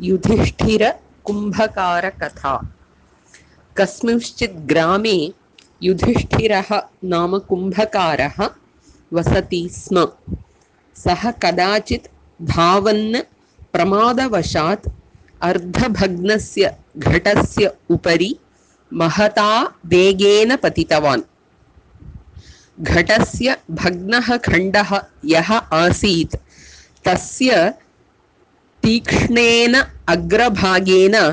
युधिष्ठिर कुंभकार कथा। कस्मिंश्चित् ग्रामे युधिष्ठिरः नाम कुंभकारः वसति स्म। सः कदाचित् धावन् प्रमादवशात् अर्धभग्नस्य घटस्य उपरि महता वेगेन पतितवान्। घटस्य भग्नः खण्डः यः आसीत् तस्य तीक्ष्णेन अग्रभागेन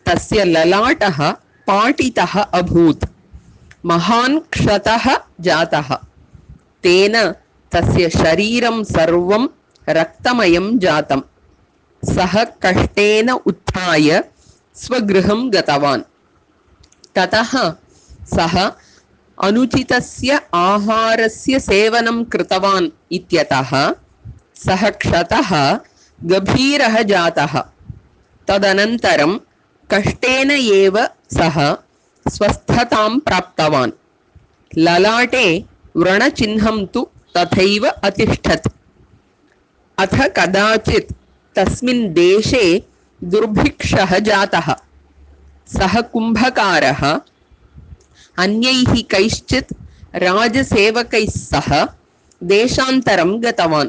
तस्य ललाटः पाटितः अभूत्। महान् क्षतः जातः। तेन तस्य शरीरं सर्वं रक्तमयं जातम्। सः कष्टेन उत्थाय स्वगृहं गतवान्। ततः सः अनुचितस्य आहारस्य सेवनं कृतवान् इत्यतः सः क्षतः गभीरः जातः। तदनन्तरं कष्टेन एव सः स्वस्थतां प्राप्तवान्। ललाटे व्रणचिह्नं तु तथैव अतिष्ठत्। अथ कदाचित् तस्मिन् देशे दुर्भिक्षः जातः। सः कुम्भकारः अन्यैः कैश्चित् राजसेवकैः सह देशान्तरं गतवान्।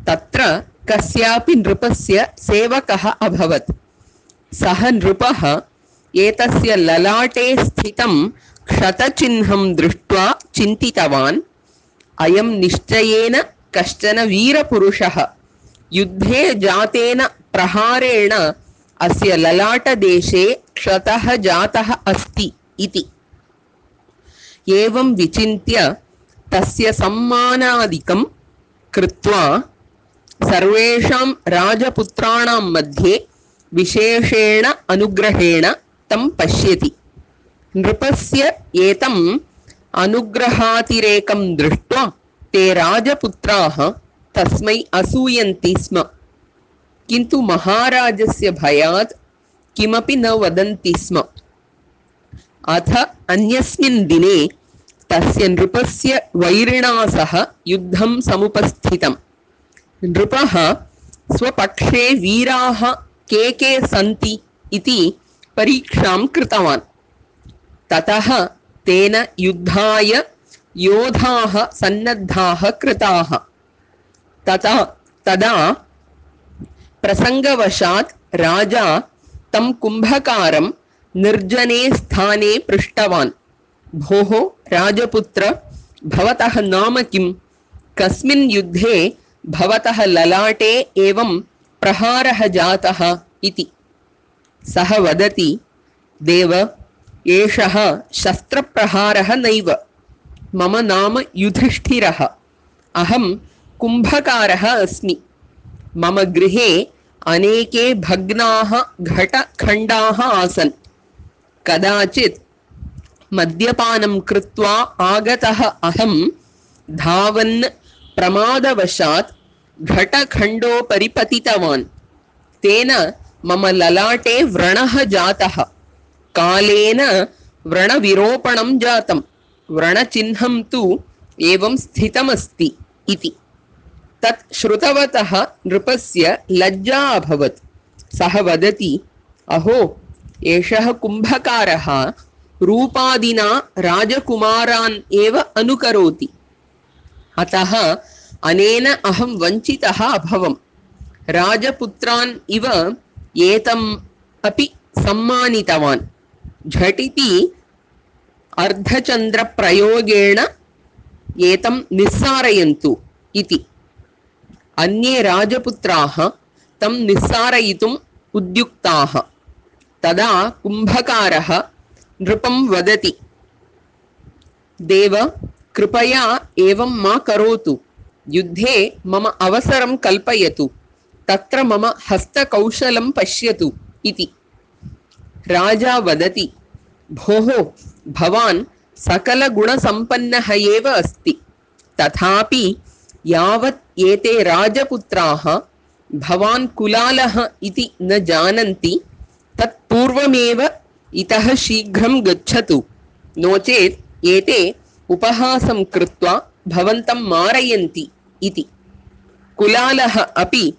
तत्र कस्यापि नृपस्य सेवकः अभवत्। सः नृपः एतस्य ललाटे स्थितं क्षतचिह्नं दृष्ट्वा चिन्तितवान्, अयं निश्चयेन कश्चन वीरपुरुषः। युद्धे जातेन प्रहारेण अस्य ललाटदेशे क्षतः जातः अस्ति इति। एवं विचिन्त्य तस्य सम्मानादिकं कृत्वा सर्वेषां राजपुत्राणां मध्ये विशेषेण अनुग्रहेण तं पश्यति। नृपस्य एतम् अनुग्रहातिरेकं दृष्ट्वा ते राजपुत्राः तस्मै असूयन्ति स्म। किन्तु महाराजस्य भयात् किमपि न वदन्ति स्म। अथ अन्यस्मिन् दिने तस्य नृपस्य वैरिणा सह युद्धं समुपस्थितम्। नृपः स्वपक्षे वीराः के के सन्ति इति परीक्षां कृतवान्। ततः तेन युद्धाय योधाः सन्नद्धाः कृताः। तदा प्रसङ्गवशात् राजा तं कुम्भकारं निर्जने स्थाने पृष्टवान्। भोः राजपुत्र, भवतः नाम किं? कस्मिन् युद्धे भवतः ललाटे एवं प्रहारः जातः इति। सः वदति, देव, एषः शस्त्रप्रहारः नैव। मम नाम युधिष्ठिरः। अहं कुम्भकारः अस्मि। मम गृहे अनेके भग्नाः घटखण्डाः आसन्। कदाचित् मद्यपानं कृत्वा आगतः अहं धावन् प्रमादवशात् घटखण्डोपरि पतितवान्। तेन मम ललाटे व्रणः जातः। कालेन व्रणविरोपणं जातं। व्रणचिह्नं तु एवं स्थितमस्ति इति। तत् श्रुतवतः नृपस्य लज्जा अभवत्। सः वदति, अहो, एषः कुम्भकारः रूपादिना राजकुमारान् एव अनुकरोति। अतः अनेन अहं वञ्चितः अभवम्। राजपुत्रान् इव एतम् अपि सम्मानितवान्। झटिति अर्धचन्द्रप्रयोगेण एतं निस्सारयन्तु इति। अन्ये राजपुत्राः तं निस्सारयितुम् उद्युक्ताः। तदा कुम्भकारः नृपं वदति, देव, कृपया एवं मा करोतु। युद्धे मम अवसरं कल्पयतु। तत्र मम हस्तकौशलं पश्यतु इति। राजा वदति, भोः, भवान् सकलगुणसम्पन्नः एव अस्ति। तथापि यावत् एते राजपुत्राः भवान् कुलालः इति न जानन्ति, तत्पूर्वमेव इतः शीघ्रं गच्छतु। नो चेत् एते उपहासं कृत्वा भवन्तं मारयन्ति इति। कुलालः अपि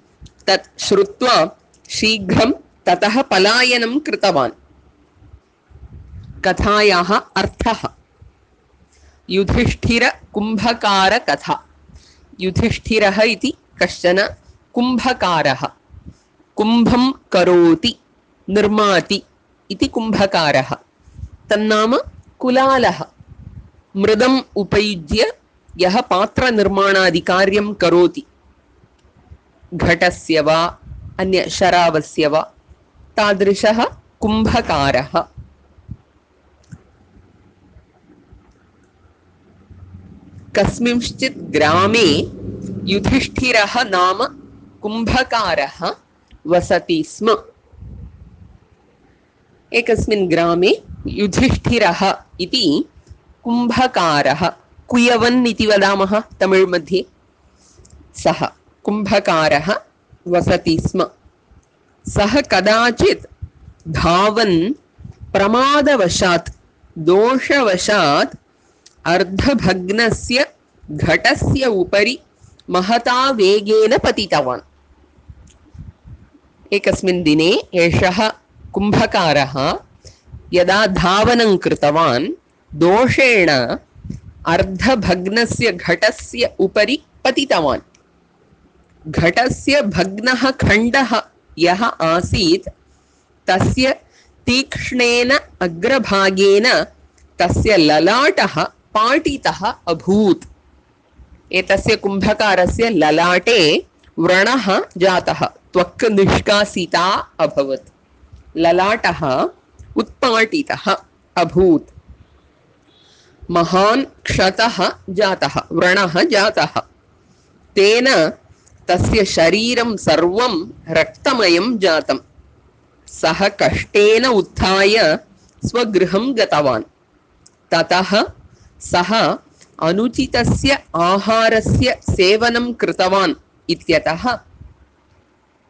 तत् श्रुत्वा शीघ्रं ततः पलायनं कृतवान्। कथायाः अर्थः युधिष्ठिर-कुम्भकार-कथा। युधिष्ठिरः इति कश्चन कुम्भकारः, कुम्भं करोति निर्माति इति कुम्भकारः। तन्नाम कुलालः। मृदम् उपयुज्य यः पात्रनिर्माणादिकार्यं करोति, घटस्य वा अन्य शरावस्य वा, तादृशः कुम्भकारः। कस्मिंश्चित् ग्रामे युधिष्ठिरः नाम कुम्भकारः वसति स्म। एकस्मिन् ग्रामे युधिष्ठिरः इति कुम्भकारः, कुयवन् इति वदामः तमिळ् मध्ये, सः कुम्भकारः वसति स्म। सः कदाचित् धावन् प्रमादवशात् दोषवशात् अर्धभग्नस्य घटस्य उपरि महता वेगेन पतितवान्। एकस्मिन् दिने एषः कुम्भकारः यदा धावनं कृतवान् दोषेण अर्धभग्नस्य घटस्य उपरि पतितवान्। घटस्य भग्नः खण्डः यः आसीत् तस्य तीक्ष्णेन अग्रभागेन तस्य ललाटः पाटितः अभूत्। एतस्य कुम्भकारस्य ललाटे व्रणः जातः, त्वक् निष्कासिता अभवत्, ललाटः उत्पाटितः अभूत्। महान् क्षतः जातः, व्रणः जातः। तेन तस्य शरीरं सर्वं रक्तमयं जातं। सः कष्टेन उत्थाय स्वगृहं गतवान्। ततः सः अनुचितस्य आहारस्य सेवनं कृतवान् इत्यतः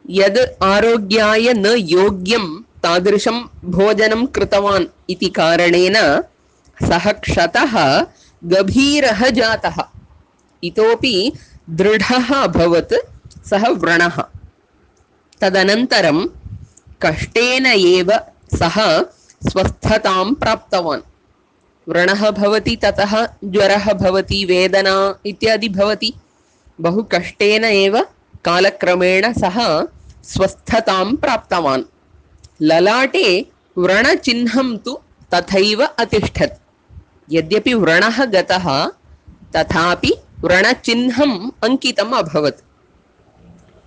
यद् आरोग्याय न योग्यं तादृशं भोजनं कृतवान् इति कारणेन सः क्षतः गभीरः जातः, इतोपि दृढः अभवत् सः व्रणः। तदनन्तरं कष्टेन एव सः स्वस्थतां प्राप्तवान्। व्रणः भवति, ततः ज्वरः भवति, वेदना इत्यादि भवति। बहु कष्टेन एव कालक्रमेण सः स्वस्थतां प्राप्तवान्। ललाटे व्रणचिह्नं तु तथैव अतिष्ठत्। यद्यपि व्रणः गतः तथापि व्रणचिह्नम् अंकितम् अभवत्।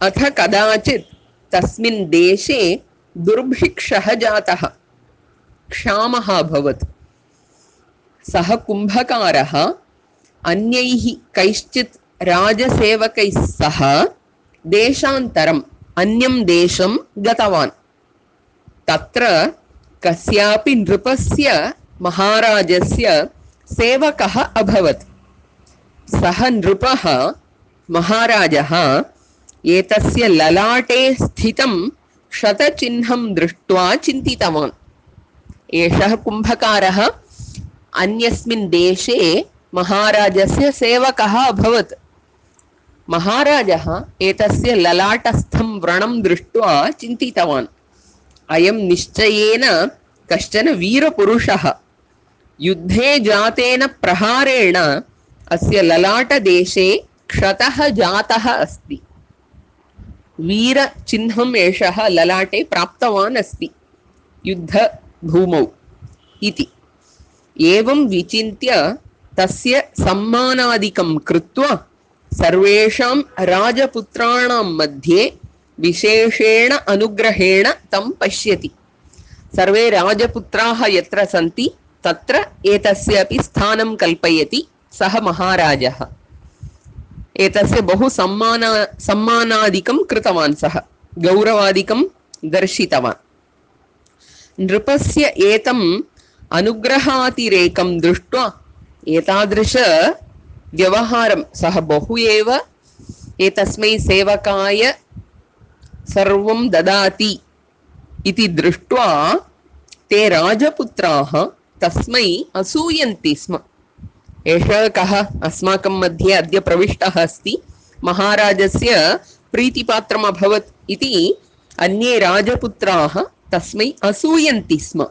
अथ कदाचित् तस्मिन् देशे दुर्भिक्षः जातः, क्षामः अभवत्। सः कुम्भकारः अन्यैः कैश्चित् राजसेवकैः सह देशान्तरम् अन्यं देशं गतवान्। तत्र कस्यापि नृपस्य महाराजस्य सेवकः अभवत्। सः नृपः महाराजः एतस्य ललाटे स्थितं क्षतचिह्नं दृष्ट्वा चिन्तितवान्। एषः कुम्भकारः अन्यस्मिन् देशे महाराजस्य सेवकः अभवत्। महाराजः एतस्य ललाटस्थं व्रणं दृष्ट्वा चिन्तितवान्, अयं निश्चयेन कश्चन वीरपुरुषः। युद्धे जातेन प्रहारेण अस्य ललाटदेशे क्षतः जातः अस्ति। वीरचिह्नम् एषः ललाटे प्राप्तवान् अस्ति युद्धभूमौ इति। एवं विचिन्त्य तस्य सम्मानादिकं कृत्वा सर्वेषां राजपुत्राणां मध्ये विशेषेण अनुग्रहेण तं पश्यति। सर्वे राजपुत्राः यत्र सन्ति तत्र एतस्य अपि स्थानं कल्पयति सः महाराजः। एतस्य बहु सम्मानादिकं कृतवान्, सः गौरवादिकं दर्शितवान्। नृपस्य एतम् अनुग्रहातिरेकं दृष्ट्वा एतादृश व्यवहारं सः बहु एव एतस्मै सेवकाय सर्वं ददाति इति दृष्ट्वा ते राजपुत्राः तस्मै असूयन्ति स्म। एषः कः अस्माकं मध्ये अद्य प्रविष्टः अस्ति, महाराजस्य प्रीतिपात्रम् अभवत् इति अन्ये राजपुत्राः तस्मै असूयन्ति स्म,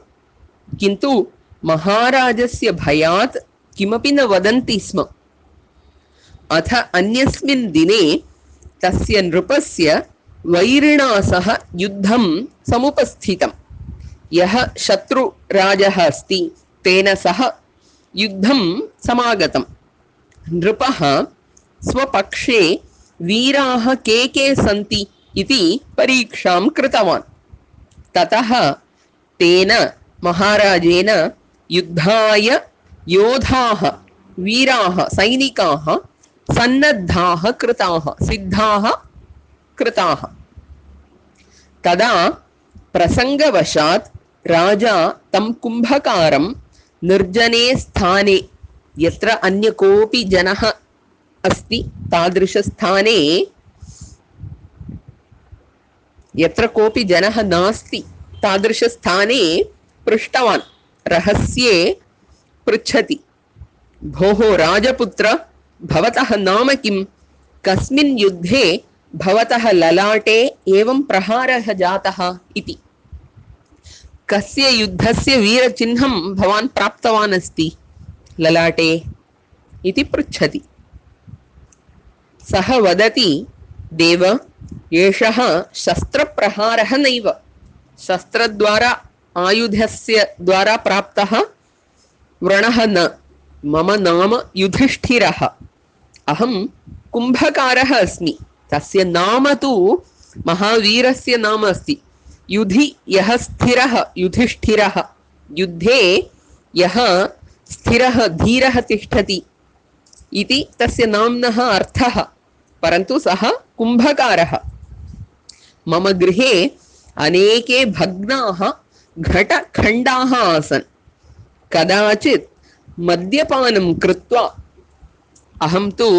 किन्तु महाराजस्य भयात् किमपि न वदन्ति स्म। अथ अन्यस्मिन् दिने तस्य नृपस्य वैरिणा सह युद्धं समुपस्थितम्। यः शत्रुराजः अस्ति तेन सह युद्धं समागतम्। नृपः स्वपक्षे वीराः के सन्ति इति परीक्षां कृतवान्। ततः तेन महाराजेन युद्धाय योधाः वीराः सैनिकाः सन्नद्धाः कृताः सिद्धाः कृताः। तदा प्रसंगवशात् राजा तं कुंभकारं निर्जने स्थाने, यत्र अन्य कोऽपि जनः अस्ति तादृशस्थाने, यत्र कोऽपि जनः नास्ति तादृशस्थाने पृष्टवान्। रहस्ये पृच्छति, भोः राजपुत्र, भवतः नाम किं? कस्मिन् युद्धे भवतः ललाटे एवं प्रहारः जातः इति। कस्य युद्धस्य वीरचिह्नं भवान् प्राप्तवान् अस्ति ललाटे इति पृच्छति। सः वदति, देव, एषः शस्त्रप्रहारः नैव, शस्त्रद्वारा आयुधस्य द्वारा प्राप्तः व्रणः न। मम नाम युधिष्ठिरः, अहं कुंभकारः अस्मि। तस्य नाम तु महावीरस्य नाम अस्ति। युधि यः स्थिरः युधिष्ठिरः, युद्धे यः स्थिरः धीरः तिष्ठति इति तस्य नाम्नः अर्थः। परन्तु सः कुंभकारः। मम गृहे अनेके भग्नाः घटखण्डाः आसन्। कदाचित् मद्यपानं कृत्वा, अहं तु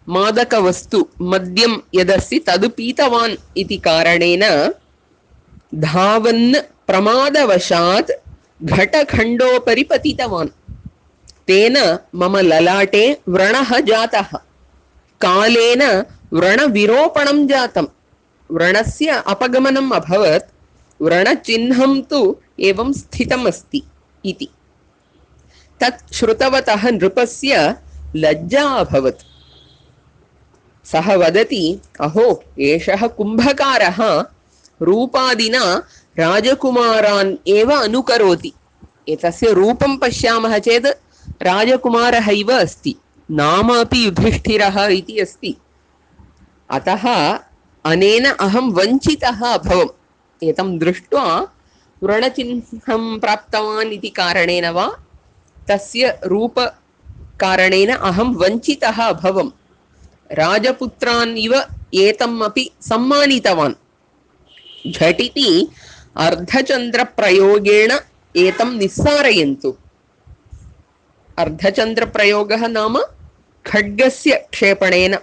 मादकवस्तु मद्यं यदस्ति तद् पीतवान् इति कारणेन धावन् प्रमादवशात् घटखण्डोपरि पतितवान्। तेन मम ललाटे व्रणः जातः। कालेन व्रणविरोपणं जातं, व्रणस्य अपगमनम् अभवत्। व्रणचिह्नं तु एवं स्थितम् अस्ति इति। तत् श्रुतवतः नृपस्य लज्जा अभवत्। सः वदति, अहो, एषः कुंभकारः रूपादिना राजकुमारान् एव अनुकरोति। एतस्य रूपं पश्यामः चेत् राजकुमारः इव अस्ति, नाम अपि युधिष्ठिरः इति अस्ति। अतः अनेन अहं वञ्चितः अभवम्। एतं दृष्ट्वा व्रणचिह्नं प्राप्तवान् इति कारणेन वा तस्य रूपकारणेन अहं वञ्चितः अभवम्। राजपुत्रान् इव एतम् अपि सम्मानितवान्। झटिति अर्धचन्द्रप्रयोगेण एतं निस्सारयन्तु। अर्धचन्द्रप्रयोगः नाम खड्गस्य क्षेपणेन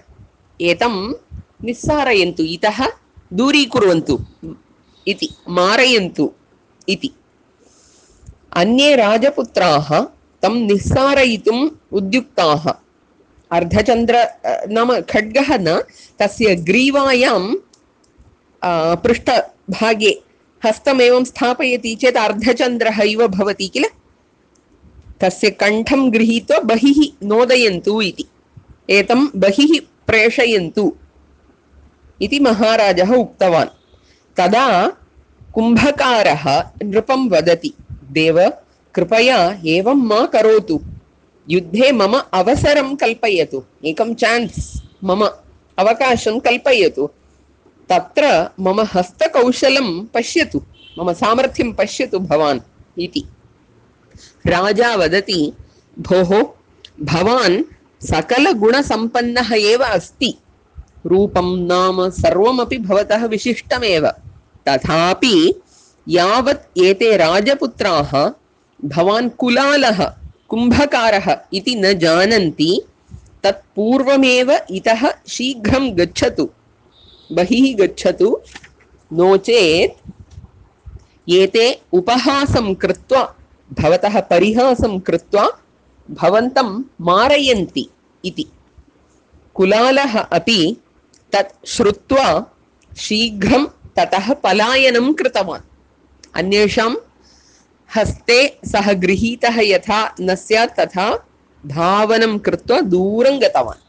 एतं निस्सारयन्तु, इतः दूरीकुर्वन्तु इति, मारयन्तु इति। अन्ये राजपुत्राः तं निस्सारयितुम् उद्युक्ताः। अर्धचन्द्र नाम खड्गः न, तस्य ग्रीवायां पृष्ठभागे हस्तमेवं स्थापयति चेत् अर्धचन्द्रः इव भवति किल। तस्य कण्ठं गृहीत्वा बहिः नोदयन्तु इति, एतं बहिः प्रेषयन्तु इति महाराजः उक्तवान्। तदा कुंभकारः नृपं वदति, देव, कृपया एवं मा करोतु। युद्धे मम अवसरं कल्पयतु, एकं चान्स्, मम अवकाशं कल्पयतु। तत्र मम हस्तकौशलं पश्यतु, मम सामर्थ्यं पश्यतु भवान् इति। राजा वदति, भोः, भवान् सकलगुणसम्पन्नः एव अस्ति। रूपं नाम सर्वमपि भवतः विशिष्टमेव। तथापि यावत् एते राजपुत्राः भवान् कुलालः कुंभकारः इति न जानन्ति, तत्पूर्वमेव इतः शीघ्रं गच्छतु, बहिः गच्छतु, नो चेत् एते उपहासं कृत्वा, भवतः परिहासं कृत्वा भवन्तं मारयन्ति इति। कुलालः अपि तत् श्रुत्वा शीघ्रं ततः पलायनं कृतवान्। अन्येषां हस्ते सः गृहीतः यथा न स्यात् तथा धावनं कृत्वा दूरं गतवान्।